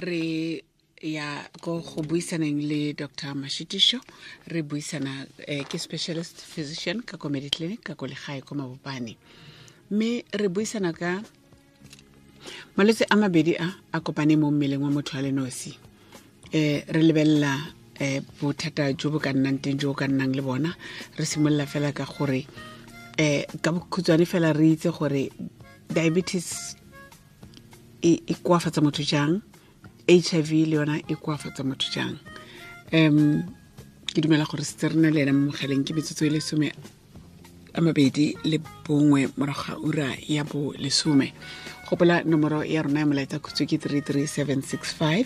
Re ya ko go buisaneng le Dr Mashitisho, re buisana ke specialist physician ka ko Mediclinic ka ko legae ko Mabopane, mme re buisana ka malwetse a mabedi a a kopane mo mmeleng wa motho a le nosi. Re lebelela bothata jo bo ka nnang teng, jo bo ka nnang le bona. Re simolola fela ka gore ka bokhutshwane fela re itse gore diabetes e koafatsa motho jang, HIV le yona e koafatsa motho jang. Ke dumela gore setse re na le ena mo mogaleng. Ke metsotso e le 21 morago ga ura ya bo 10. Gopola nomoro ya rona ya molaetsa khutshwe ke 33765,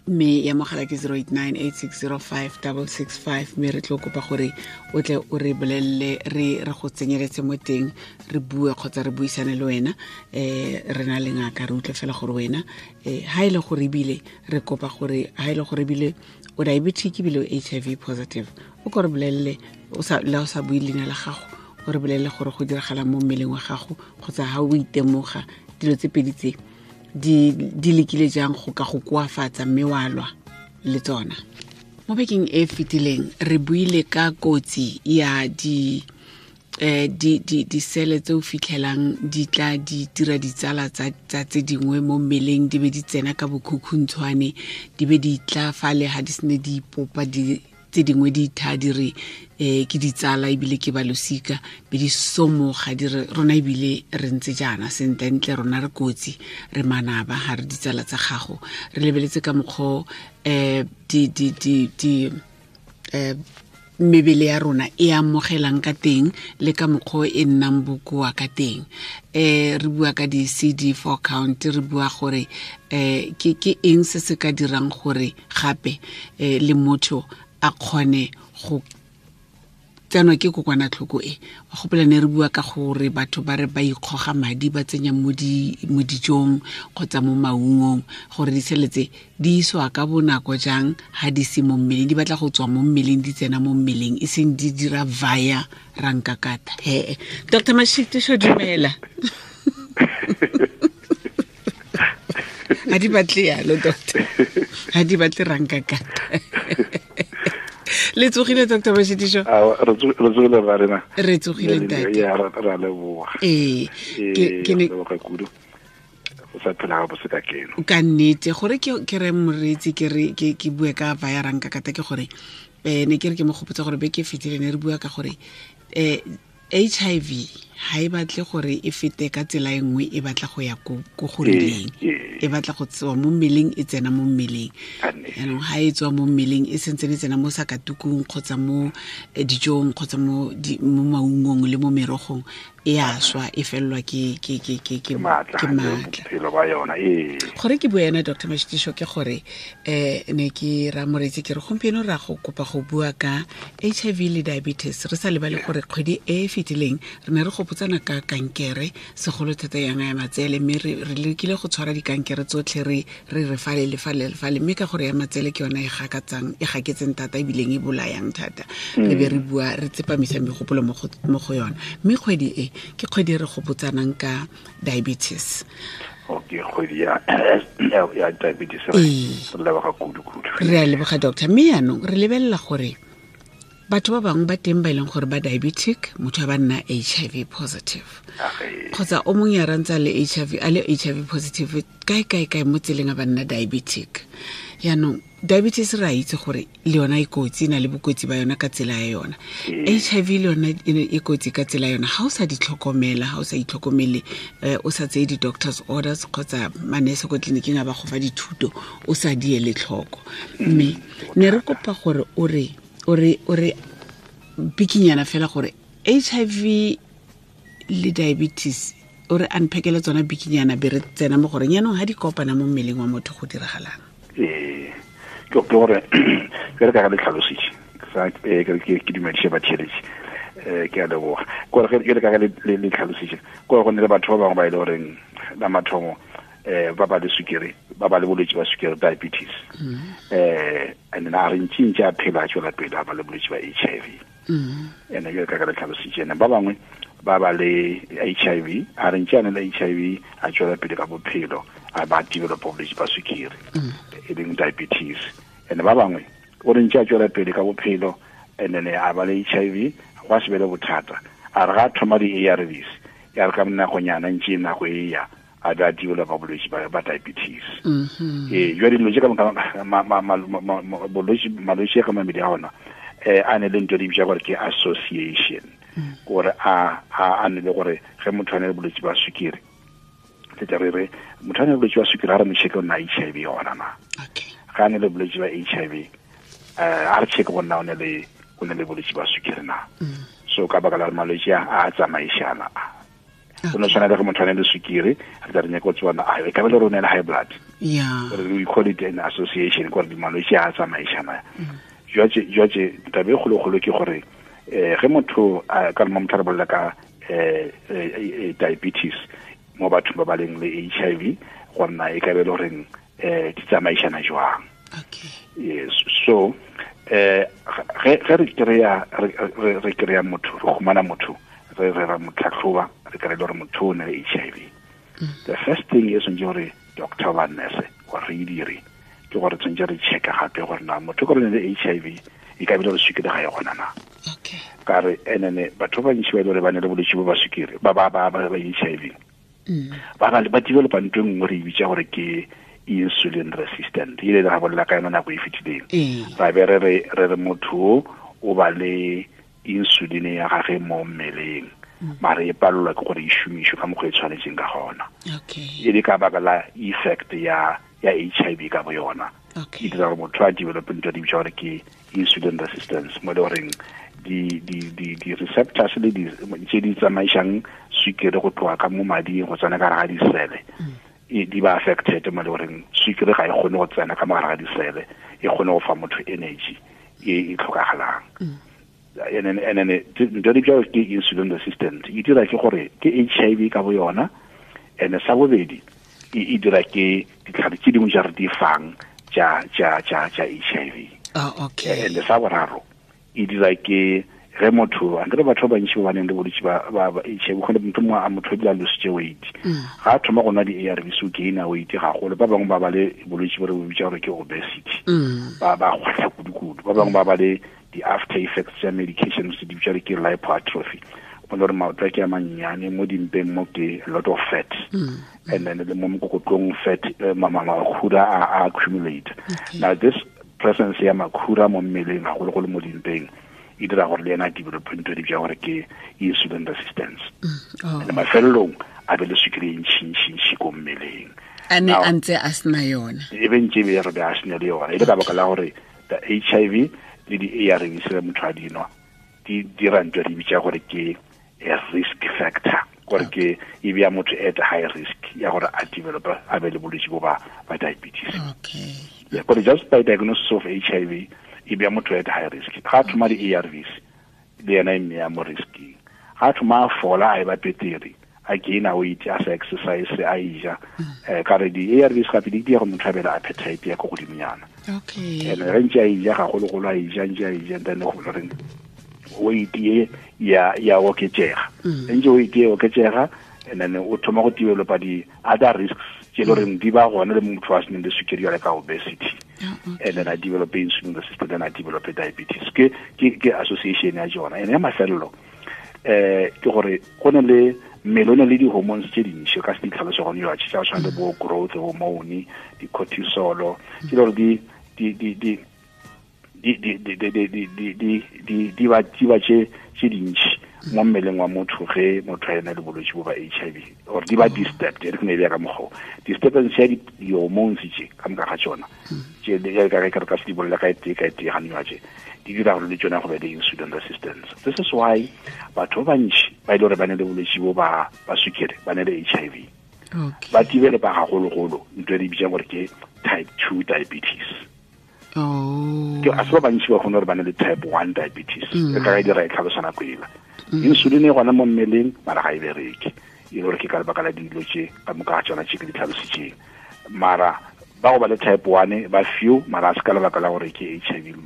mme ya mogala ke 0898605665. Mme re tlo kopa gore o tle o re bolelele, re go tsenyeletse mo teng, re bue kgotsa re buisane le wena. Re na le ngaka, re utlwe fela gore wena ha e le gore ebile re kopa gore ha e le gore ebile o diabetic ebile o HIV positive, o ko re bolelele, le o sa bue leina la gago, o re bolelele gore go diragala mo mmeleng wa gago, kgotsa ha o itemoga dilo tse pedi tse di lekile jang go ka go koafatsa mme wa lwa le tsona. Mo bekeng e fetileng re buile ka kotsi ya disele tse o fitlhelang di tla di dira ditsala tsa tse dingwe mo mmeleng, di be di tsena ka bokhukhuntshwane, di be di tla fale ha di sene di ipopa, di tse dingwe di itha di re ke ditsala ebile ke balosika, be di somoga di re rona ebile re ntse jaana sentlentle, rona re kotsi, re manaba, ga re ditsala tsa gago. Re lebeletse ka mokgwa di mebele ya rona e amogelang ka teng le ka mokgwa e nnang bokoa ka teng. Re bua ka di-CD4 count, re bua gore ke eng se se ka dirang gore gape le motho a kgone go tsenwa ke kokwanatlhoko e. Wa gopola ne re bua ka gore batho ba re ba ikgoga madi ba tsenya mo dijong kgotsa mo maungong, gore disele tse di iswa ka bonako jang ha di se mo mmeleng, di batla go tswa mo mmeleng di tsena mo mmeleng, e seng di dira via rankakata. He Dr Mashitisho, dumela. Ha di batle yalo doctor, ha di batle rankakata. Le tsogile Dr Mashitisho? Re tsogile ba rena. Re tsogile ntate. Ya ra leboga. Ee, ke ne leboga kudu. O sa phela ga bose ka keno. Ka nnete gore ke re moreetsi ke re ke bue ka via rankakata, ke gore ne ke re ke mo gopotsa gore beke e fetile ne re bua ka gore HIV ha e batle gore e fete ka tsela e nngwe, e batla go ya ko go rileng, e batla go tswa mo mmeleng e tsena mo mmeleng. Jaanong ha e tswa mo mmeleng e sentse e tsena mo sakatukung kgotsa mo dijong kgotsa mo maungong le mo merogong, e a swa, e fellwa ke maatla. Gore ke bua ena Dr Mashitisho ke gore ne ke ra moreetsi ke re gompieno ra go kopa go bua ka HIV le diabetes, re sa lebale gore kgwedi e e fetileng re ne re gopotsana ka kankere, segolo thata yang ya matsele, mme re lekile go tshwara dikankere tsotlhe re re fale le fale le fale, mme ka gore ya matsele ke yona e gaketseng thata ebileng e bolayang thata, re be re bua re tsepamisa megopolo mo go yona. Mme kgwedi e ke kgwedi re gopotsanang ka diabetes. Okay, kgwedi ya diabetes re leboga kudu-kudu. Re a leboga doctor. Mme yaanong re lebelela gore batho ba bangwe ba teng ba e leng gore ba diabetic, motho a ba nna HIV positive, kgotsa o mongwe ya rantsa le HIV, a le HIV positive kae kae kae mo tseleng a ba nna diabetic. Yaanong diabetes re a itse gore le yona e kotsi, e na le bokotsi ba yona ka tsela ya yona. HIV le yona e kotsi ka tsela ya yona. Ha o sa di tlhokomela, ha o sa itlhokomele, o sa tseye di-doctor's orders kgotsa manese ko tleliniking a ba go fa dithuto, o sa di ele tlhoko. Mme ne re kopa gore o re bikinyana fela gore HIV le diabetes, o re unpackele tsona bikinyana be re tsena mo gore yaanong ha di kopana mo mmeleng wa motho go diragalang. Ke gore ke re ka le tlhalositse ke dumedise batheletši, ke a leboga. Ke gore ke re ka le tlhalositse gore go ne le batho ba bangwe ba e le goreng la mathomo ba ba le sukiri, ba ba le bolwetse ba sukiri, diabetes, and then a re ntšintši a phela a tswela pele a ba le bolwetse ba HIV. Ene ke ka le tlhalositse ene ba bangwe ba ba le HIV, a re ntse a ne le HIV a tswela pele ka bophelo, a ba develop bolwetse ba sukiri e leng diabetes. And ba bangwe o re ntse a tswela pele ka bophelo, and then a ba le HIV, gwa se be le bothata. A re ga thoma di-ARVs, ya re ka nakonyana ntse nako e ya a ba developa bolwetse ba diabetes. Ee, jwa dilo tse ka bolwetse, malwetse ka mabedi a ona a ne le ntho di bitsa gore ke association, gore a ne le gore ge motho a ne le bolwetse ba sukiri, le tla re re motho a ne le bolwetse ba sukiri, a re mo check o na HIV yona na. Ga a ne le bolwetse ba HIV, a re check go nna o ne le bolwetse ba sukiri na. So ka baka la malwetse a tsamaišana, go no tshwana le ge motho a ne le sukiri, re tla re nyaka go tsebana a e ka be le rone le high blood. Gore we call it an association, gore malwetse a tsamaišana. Jwatse tabe e kgolokgolo ke gore ge motho ka mo motho re bolela ka diabetes mo bathong ba ba leng le HIV, go nna e ka be le goreng di tsamaišana jwang. Yes, so ge re kry-a re kry-a motho, re humana motho, re ra mo tlhatlhoba, re kry-e le gore motho o ne le HIV, the first thing e tshwanetse gore doctor ba nurse gore re e dire ke gore tshwanetse re checka gape gore na motho ka re ne le HIV e ka bile re sukiri ga e gona na. Ka re enene batho ba bantši ba ile gore ba ne le bolwetse bo ba sukiri ba ba ba ba HIV, ba ba ba developa ntho e nngwe re e bitsa gore ke insulin resistant. Ile ra bolela ka yona nako e fetileng, ra be re re motho o ba le insulin ya gage mo mmeleng, mare e palelwa ke gore e šomišwe ka mokgwa e tshwanetseng ka gona. E le ka baka la effect ya HIV ka bo yona. E dira gore motho a develop ntho di bitsa gore ke insulin resistance, mo le goreng di receptors le tse di tsamaišang sukiri go tloga ka mo mading go tsena ka gare ga disele di ba affected, mo le goreng sukiri ga e kgone go tsena ka mo gare ga disele e kgone go fa motho energy e tlhokagalang. And then ntho di bitsa ke insulin resistant e dira ke gore ke HIV ka bo yona, and sa bobedi e dira ke ditlhare tse dingwe tsa re di fang tsa HIV. And sa boraro e dira ke ge motho a nkere batho ba bantši ba baneng le bolwetse ba HIV, go le motho mongwe a motho ebile a lositse weight, ga a thoma go nwa di-ARVs o gaina weight gagolo. Ba bangwe ba ba le bolwetse bo re bo bitsa gore ke obesity, ba kgwatlha kudu-kudu. Ba bangwe ba ba le di-after effects tsa medications di bitsa ke lipoatrophy, mo le gore maoto a ke a mannyane, mo dimpeng mo ke a lot of fat, and then le mo mokokotlong fat, makhura a accumulate. Now this presence ya makhura mo mmeleng gagologolo mo dimpeng e dira gore le ena a develop ntho di bitsa gore ke insulin resistance, and mafelelong a be le sukiri e ntšhintšhintšhi ko mmeleng. A ne a ntse a sena yona, e be ntse e be re be a sena le yona, e le ka baka la gore the HIV le di-ARVs le motho a dinwa di dira ntho di bitsa gore ke a risk factor, gore ke e bea motho at high risk ya gore a develop a be le bolwetse bo ba diabetes. Yeah, but just by diagnosis of HIV e bea motho at high risk. Ga thoma di-ARVs le yena e mmea mo risking, ga thoma a fola a e ba petere, a gaina weight, a sa exercise, a ija, ka re di-ARVs gape di dira gore motho a be le appetite ya ko godimonyana. And ge ntse a ija gagologolo, a ija ntse a ija, then go goreng weight e ya oketsega, ntse weight e oketsega, and then o thoma go developa di-other risks tse e le goreng di ba gona le motho a seneng le sukiri jale ka obesity, and then a develop insulin resistance, then a develop diabetes. Ke association ya jona. And ya mafelelo ke gore go ne le mmele o ne le di-hormones tse dintši ka se di tlhalose gone yo tsa go tshwana le bo growth hormone, di-cortisol, tse le gore di ba tse dintši mo mmeleng wa motho ge motho a ena le bolwetse bo ba HIV, or di ba disturbed. E re ke ne e ka mokgwa disturbance ya di-hormones tse ka moka ga tsona tse ka re ka se di bolela ka e tee ka e tee gane tse di dira gore le tsona go be le insulin resistance. This is why batho ba bantši ba ile gore ba ne le bolwetse bo ba sukiri, ba ne le HIV, ba developa gagologolo ntho e re bitsang gore ke type 2 diabetes. Ke a se ba bantši ba kgone gore ba ne le type 1 diabetes, e ka ga e dira e tlhalosa nako ela. Insulin e gona mo mmeleng mara ga e bereke, e le gore ke ka lebaka la dilo tse ka moka ga tsona tse ke di tlhalositseng. Mara ba go ba le type 1 ba few, mara a se ka lebaka la gore ke HIV.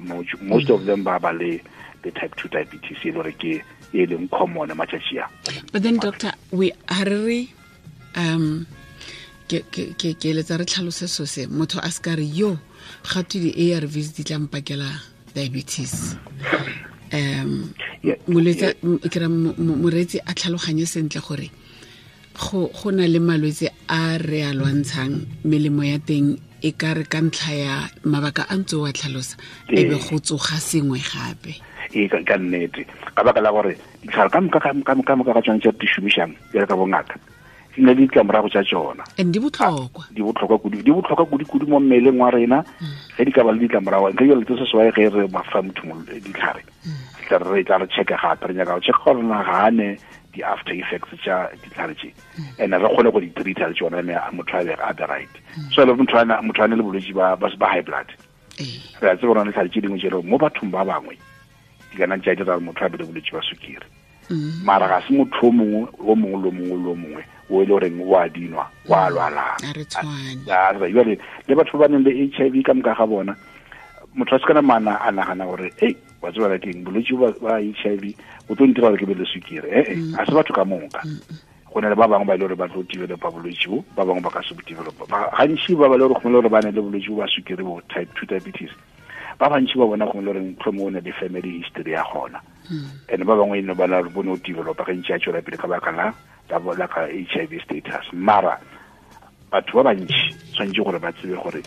Most of them ba ba le type 2 diabetes, e le gore ke e leng common matšatši a. But then doctor, we ha re Ke eletsa re tlhalose so se motho a se ka re yo ga twe di-ARVs di tla mpakela diabetes. Molwetse ke ra moreetsi a tlhaloganye sentle gore go na le malwetse a re a lwantshang, melemo ya teng e ka re ka ntlha ya mabaka a ntse wa tlhalosa e be go tsoga sengwe gape. Ee, ka nnete, ka baka la gore ditlhare ka moka ka tsone tse di šomišang bjale ka bongaka di na le ditlamorago tša tsona. And di botlhokwa. Di botlhokwa kudu, di botlhokwa kudu-kudu mo mmeleng wa rena. Ge di ka ba le ditlamorago, ntle jale tse seswae ge re fa motho ditlhare, re tla re checka gape, re nyaka go checka gore na ga ne di-after effects tša ditlhare tše, and re kgone go di treata le tsona, mme motho a be a be right. So le motho a ne le bolwetse ba high blood, re a tseba gore ditlhare tše dingwe tše mo bathong ba bangwe di kana tša dira motho a be le bolwetse ba sukiri. Mara ga se motho o mongwe o mongwe le mongwe le mongwe o e le goreng o a dinwa wa lwalang. Jale le batho ba ba neng le HIV ka moka ga bona, motho a se kana mana a nagana gore ei wa tseba ke eng bolwetse ba HIV o tlo ntira gore ke be le sukiri. A se batho ka moka. Go na le ba bangwe ba e le gore ba tlo developa bolwetse bo, ba bangwe ba ka se bo developa. Gantši ba ba le gore gongwe le gore ba ne le bolwetse bo ba sukiri bo type 2 diabetes, ba bantši ba bona gongwe le gore mohlomongwe o ne le family history ya gona. And ba bangwe eno ba na le bone o developa ge ntše a tšwela pele ka baka la ka HIV status. Mara batho ba bantši tshwanetse gore ba tsebe gore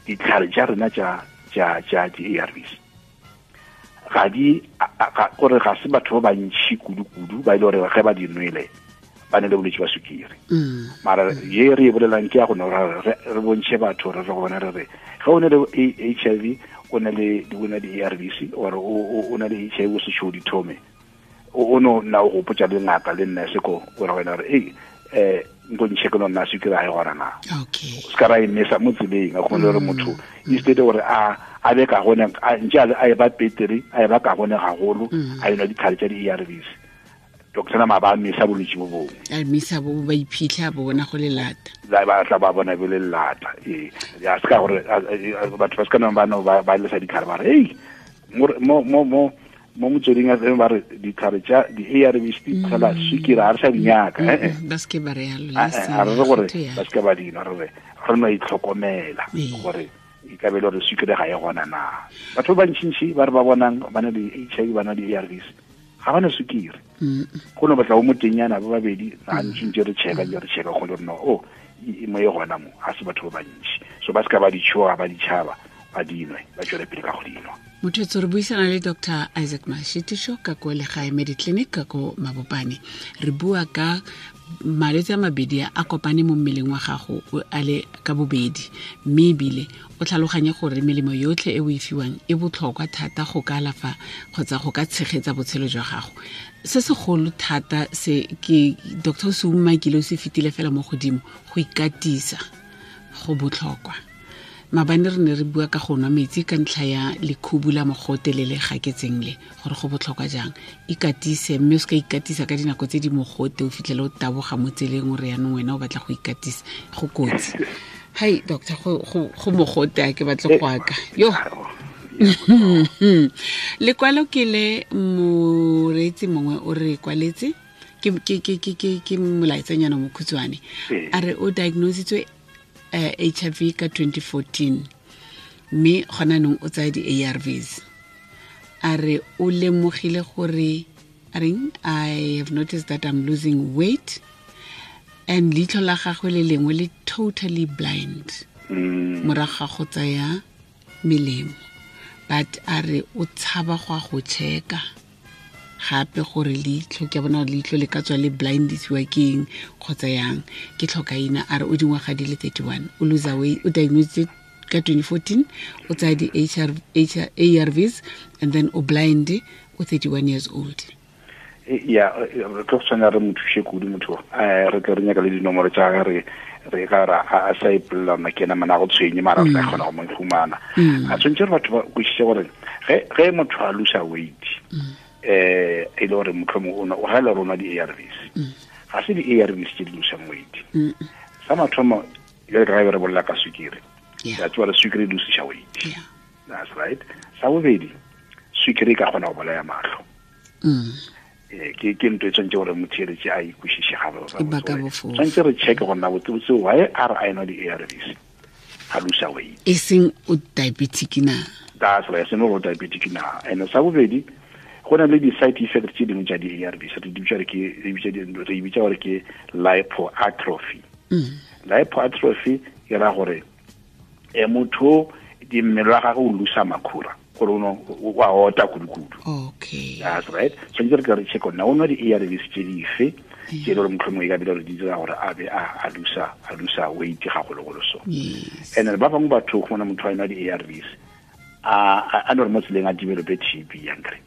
ditlhare tša rena tša di-ARVs ga di gore ga se batho ba bantši kudu-kudu ba e le gore ge ba di nwele ba ne le bolwetse ba sukiri. Mara ye re e bolelang ke ya go no re bontšhe batho re go bona re re ge o ne le HIV o ne le di-ARVs or o ne le HIV o se tšho di thome, o no nna o gopotša le ngaka le nurse ko o re wena re ei nko ntšhe ke no nna sukiri ga e gona na. Se ka ra e mesa mo tseleng, a kgone gore motho instead gore a be ka gone ntše a e ba peteri, a e ba ka gone gagolo, a enwa ditlhare tša di-ARVs, doctor na ba mesa bolwetse bo bongwe. A mesa bo ba iphitlha bo bona go le lata. Ba tla ba bona bo le lata. Ee, ya se ka gore batho ba se ka nang ba no ba lesa ditlhare ba re ei mo mo mo mo motsweding a ba re ditlhare tša di-ARVs di tshela sukiri a re sa di nyaka. Ba se ke ba re yalo. A re gore ba se ke ba dinwa, re re no itlhokomela gore e ka be le gore sukiri ga e gona na. Batho ba bantšintši ba re ba bonang ba na le HIV ba na le di-ARVs ga ba na sukiri. Go no batla o motenyana ba babedi ga ntšintši re checka re checka go le no o mo e gona mo ga se batho ba bantši. So ba se ka ba di tšhoga ba ditšhaba ba dinwe ba tšwele pele ka go dinwa. Motho re buisana le Dr. Isaac Mashitisho ka ko Legae Mediclinic ka ko Mabopane. Re bua ka malwetse a mabedi a kopane mo mmeleng wa gago a le ka bobedi, mme ebile o tlhaloganye gore melemo yotlhe e o e fiwang e botlhokwa thata go ka alafa kgotsa go ka tshegetsa botshelo jwa gago. Se segolo thata se ke Dr. se umakile o se fetile fela mo godimo, go ikatisa go botlhokwa. Maabane re ne re bua ka go nwa metsi ka ntlha ya lekhubu la mogote le le gaketseng le gore go botlhokwa jang. Ikatise, mme o se ka ikatisa ka dinako tse di mogote o fitlhele o taboga mo tseleng o re yanong wena o batla go ikatisa, go kotsi. Hai doctor, go mogote a ke batle go aka yo. Lekwalo ke le moreetsi mongwe o re kwaletse ke molaetsanyana mokhutshwane, a re o diagnositswe HIV ka 2014 mme gona nong o tsaya di-ARVs. A re o lemogile gore a reng, I have noticed that I'm losing weight and leitlho la gagwe le lengwe le totally blind morago ga go tsaya melemo, but a re o tshaba go a go checka gape gore leitlho ke bona leitlho le ka tswa le blindisiwa ke eng kgotsa yang, ke tlhokaina. A re o dingwaga di le 31, o lose weight, o diagnosed ka 2014, o tsaya di-ARVs and then o blind, o 31 years old. Ya re tlo tshwanela re mo thuse kudu motho, re tle re nyaka le dinomoro tša gage re ka ra a sa ipolela rona ke ena mana go tshwenye, mara re tla kgona go mo fumana. A tshwanetse re batho ba kwešiše gore ge motho a losa weight e le gore mohlomongwe o ga le rona di-ARVs, ga se di-ARVs tse di losang weight. Sa mathomo jale ka ge re bolela ka sukiri, ya tseba re sukiri e losiša weight. That's right. Sa bobedi, sukiri e ka kgona go bolaya mahlo. Ke ntho e tshwanetse gore motheeletše a ikwešiše E baka bofofu. Tshwanetse re checke gore na botsebotse why a re a enwa di-ARVs a losa weight, e seng o diabetic na. That's right, seno gore o diabetic na. And sa bobedi, go na le di-side effect tse dingwe tša di-ARVs, re di bitša re ke, re bitša di-, re bitša gore ke lipoatrophy. Lipoatrophy e ra gore motho di mmele wa gagwe o losa makhura, gore o no, o a ota kudu-kudu. That's right. Tshwanetse re ke re check na o nwa di-ARVs tse dife, tse e le gore mohlomongwe e ka bile gore di dira gore a be a losa, a losa weight gagologolo so. And then ba bangwe batho go bona motho a nwa di-ARVs, a no re mo tseleng a develope TB yankere.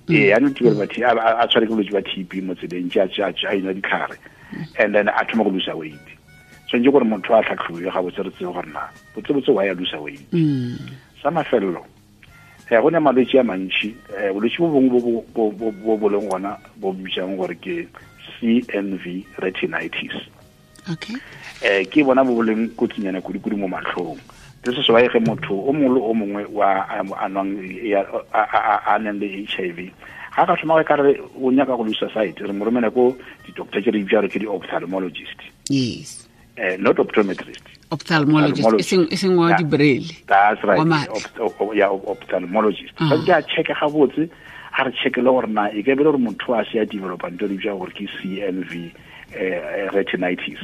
Ee, a no develope TB, a tshware ke bolwetse ba TB mo tseleng, tse a enwa ditlhare, and then a thoma go losa weight. Tshwanetse gore motho a tlhatlhobiwe gabotse re tsebe gore na botsebotse wa ya losa weight. Sa mafelelo, go ne malwetse a mantši, bolwetse bo bongwe bo leng gona bo bitsang gore ke CMV retinitis. Ke bona bo leng kotsinyana kudu-kudu mo matlhong. This is why ge motho o mongwe le o mongwe wa a nwang ya, a nang le HIV, ga ka thoma ka re o nyaka go losa sight, re mo romela ko di-doctor tse re di bitsang ke di-ophthalmologist. Not optometrist. Ophthalmologist. Ophthalmologist. E seng wa di-braille. That's right. Wa matlho. Ophthalmologist. Ba ke a check gabotse, a re check le gore na e ka be le gore motho a se a developa ntho e re bitsang gore ke CMV retinitis.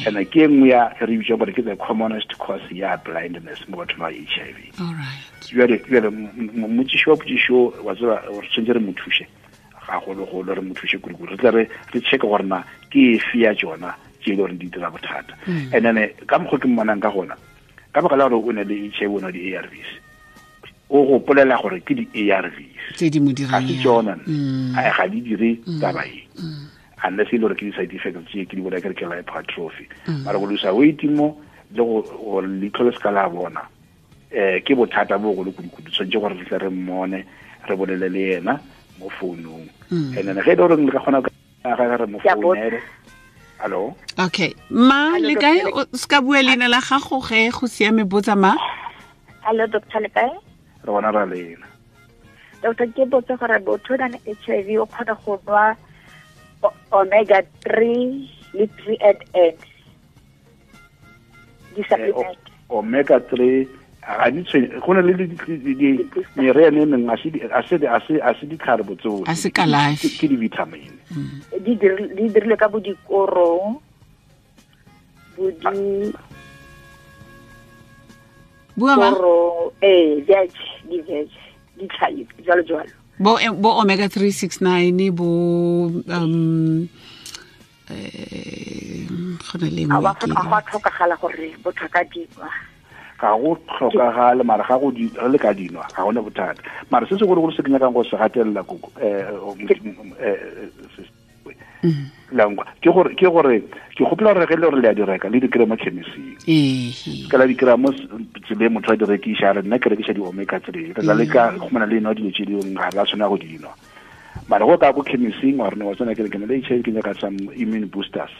And ke e nngwe ya re bitsang gore ke the commonest cause ya blindness mo bathong ba HIV. All right. Jwale, motšiši wa potšišo, wa tseba, re tshwanetse re mo thuse gagologolo, re mo thuse kudu-kudu. Re tle re check gore na ke efe ya tsona tse e le gore di dira bothata. And then, ka mokgwa ke mmonang ka gona, ka baka la gore o ne le HIV, o nwa di-A R Vs, o gopolela gore ke di-A R Vs Tse di mo dirang Ga se yang. tsona, nne. Ai, ga di dire taba e. Unless e le gore ke di-side effects tse ke di bona ke re ke lipoatrophy. Mara go losa weight mo, le gore leitlho le se ka la bona, ke bothata bo bogolo kudu-kudu. Tshwanetse gore re tle re mmone, re bolele le yena mo founung. And then ge e le gore le ka kgona ka ga re mo Ke a botsa. founele. Hello? Okay. Ma, Hello, le kae? Doctor. O ska bua leina la gago ge go siame, botsa ma. Hello, Doctor, le kae? Re bona ra lena. Doctor, ke botsa gore motho o nang le HIV o kgona go nwa omega 3 le 3 and N. Di supplement. Omega 3 ga di tshwenye, go na le di meriana e mengwe, a se ditlhare botsofe. A se kalafi. Ke di-vitamin. Di dirilwe ka bo dikorong, bo di Bua ma? Korong, ee, veg, di veg, di tlhapi, jwalo jwalo. Bo omega 369, bo, go na le e nngwe A wa ke ga go a tlhokagala gore motho a ka dinwa. Ga go tlhokagale, mara ga go di, re le ka dinwa, ga gona bothata. Mara se segologolo se ke nyakang go se gatelela koko, langwa, ke gore, ke gore, ke gopola gore ge le gore le a di reka, le di kry-a mo chemist-ing. Ka la di kry-a mo tseleng motho a di rekiša, a re nna ke rekiša di-omega 3. Re tla leka go khumana le enwa dilo tse dingwe, ga re a tshwanela go di nwa. Mara go ka ko chemist-ing, wa re no, wa tsena ke re ke na le HIV, ke nyaka some immune boosters.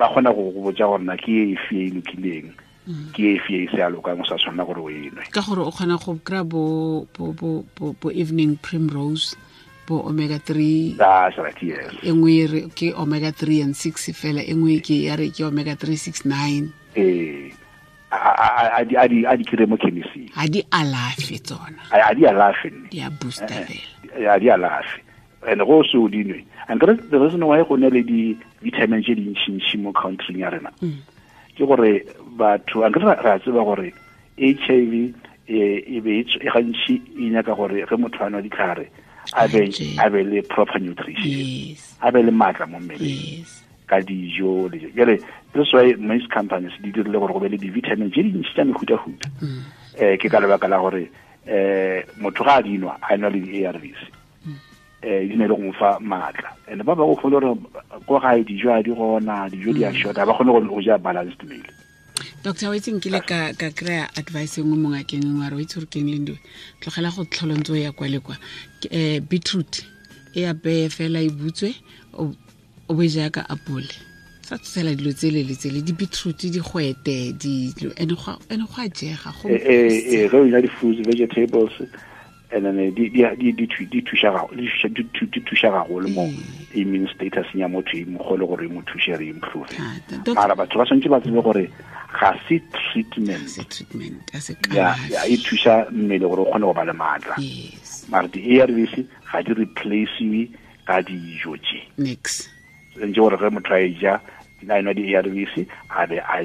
Ba kgona go go botsa gore na ke e efe e lokileng, ke e efe e se a lokang, o sa tshwanela gore o e nwe. Ka gore o kgona go kry-a bo evening primrose, bo omega 3. That's right, yes. E nngwe e re ke omega 3 and 6 fela, e nngwe ke ya re ke omega 3 6 9. Ee. A di kry-e mo chemist-ing. Ha di alafe tsona. A di alafe nne. Di a booster fela. A di alafe. And go se o di nwe. And the reason why go na le di-vitamin tse dintšintši mo country ya rena, ke gore batho, ankere re a tseba gore HIV e be e gantši e nyaka gore ge motho a nwa ditlhare, a be le proper nutrition. A be le maatla mo mmeleng. Ka dijo le jalo. Jwale, this why most companies di dirile gore go be le di-vitamin tse dintši tsa mehutahuta. Ke ka lebaka la gore, motho ga a di nwa, a nwa le di-A R Vs. Di ne le go mo fa maatla. And ba bangwe o kgone gore ko gae dijo ha di gona, dijo di a short-a, ba kgone go ja balanced meal. Doctor, wa itse nkile ka kry-a advice e nngwe mo ngakeng e nngwe, a re, wa itse gore ke eng le ntho e? Tlogela go tlhola ntse o ya kwa le kwa. Ke beetroot e apeye fela e butswe, o bo e ja ka apole. Sa tsela dilo tsele le tsele, di-beetroot, digwete, dilo, and go a jega, go Ge o ja di-fruits, vegetables, And then di thuša gagolo mo immune status ya motho e mogolo gore e mo thuse re improve. Mara batho ba tshwanetse ba tsebe gore ga se treatment, ya e thuša mmele gore o kgone go ba le maatla. Mara di-ARVs ga di replaciwe ka dijo tše. Ntse gore ge motho a e ja a enwa di-ARVs a be a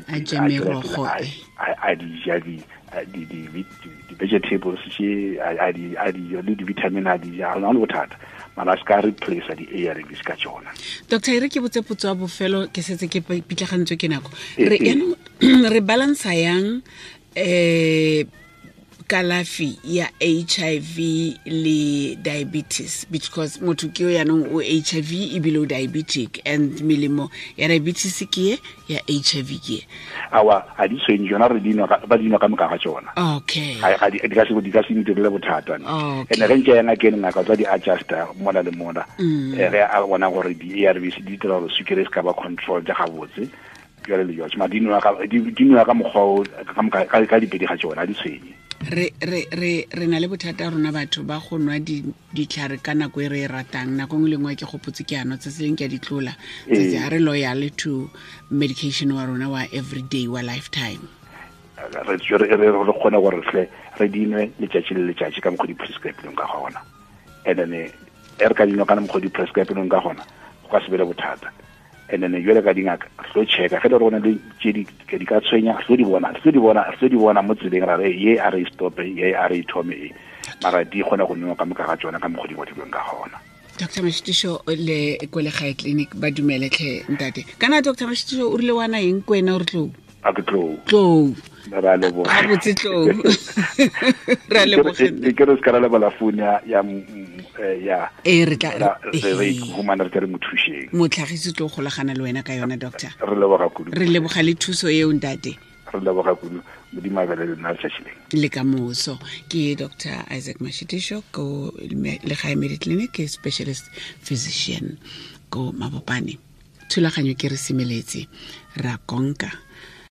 di ja di-vegetables tše a di le di-vitamin a di ja, ga le bothata, mara a se ka replace di-ARVs ka tšona. Doctor, e re ke botse potso ya bofelo, ke setse ke pitlagantswe ke nako. Re yaanong re balansa yang kalafi ya HIV le diabetes, because motho ke yo yaanong o HIV ebile o diabetic, and melemo ya diabetes ke ye, ya HIV ke ye. Awa, ga di tshwenye tsona, re dinwa ba dinwa ka moka ga tsona. Okay. Ga di ka se di ka se ntirele bothata. Ene ge ntse ya ngakeng, ngaka tsa di adjusta mola le mola. Ge a bona gore di-ARVs di dira gore sukiri e se ka ba control ja gabotse, jale le jalo. Ma di nwa ka mokgwa ka dipedi ga tsona, di tshwenye. Re na le bothata rona batho ba go nwa ditlhare ka nako e re e ratang. Nako nngwe le nngwe ke gopotse ke ano tse leng ke a di tlola. Tsatsi ga re loyal to medication wa rona wa everyday wa lifetime. Re kgone gore tle re dinwe letšatši le letšatši ka mokgwa di prescribe-leng ka gona. And then e re ka dinwa ka mokgwa di prescribe-leng ka gona, go ka se be le bothata. And then jwale ka dingaka re tlo checka ge le gore go na le tše di ka tshwenya, re tlo di bona mo tseleng, ra re ye a re stope, ye a re ithome e, mara di kgone go nwewa ka moka ga tsona ka mokgwa di ngwadilweng ka gona. Dr Mashitiso le ko Legae Clinic ba dumeletlhe ntate. Kana Dr Mashitiso o rile wana eng ko wena o re tlou? A ke tlou. Tlou. Ra leboga. Ga botse tlou. Ra leboga. Ke re se ka ra lebala phone ya ya e re tla re humana re re mo thušeng. Motlhagisi tlo golagana le wena ka yona, doctor. Re leboga kudu. Re leboga le thuso eo ntate. Re leboga kudu. Modimo a be le lena letšatši le. Le ka moso. Ke Dr Isaac Mashitisho ko Legae Mediclinic, ke specialist physician ko Mabopane. Thulaganyo ke re semeletse, ra konka.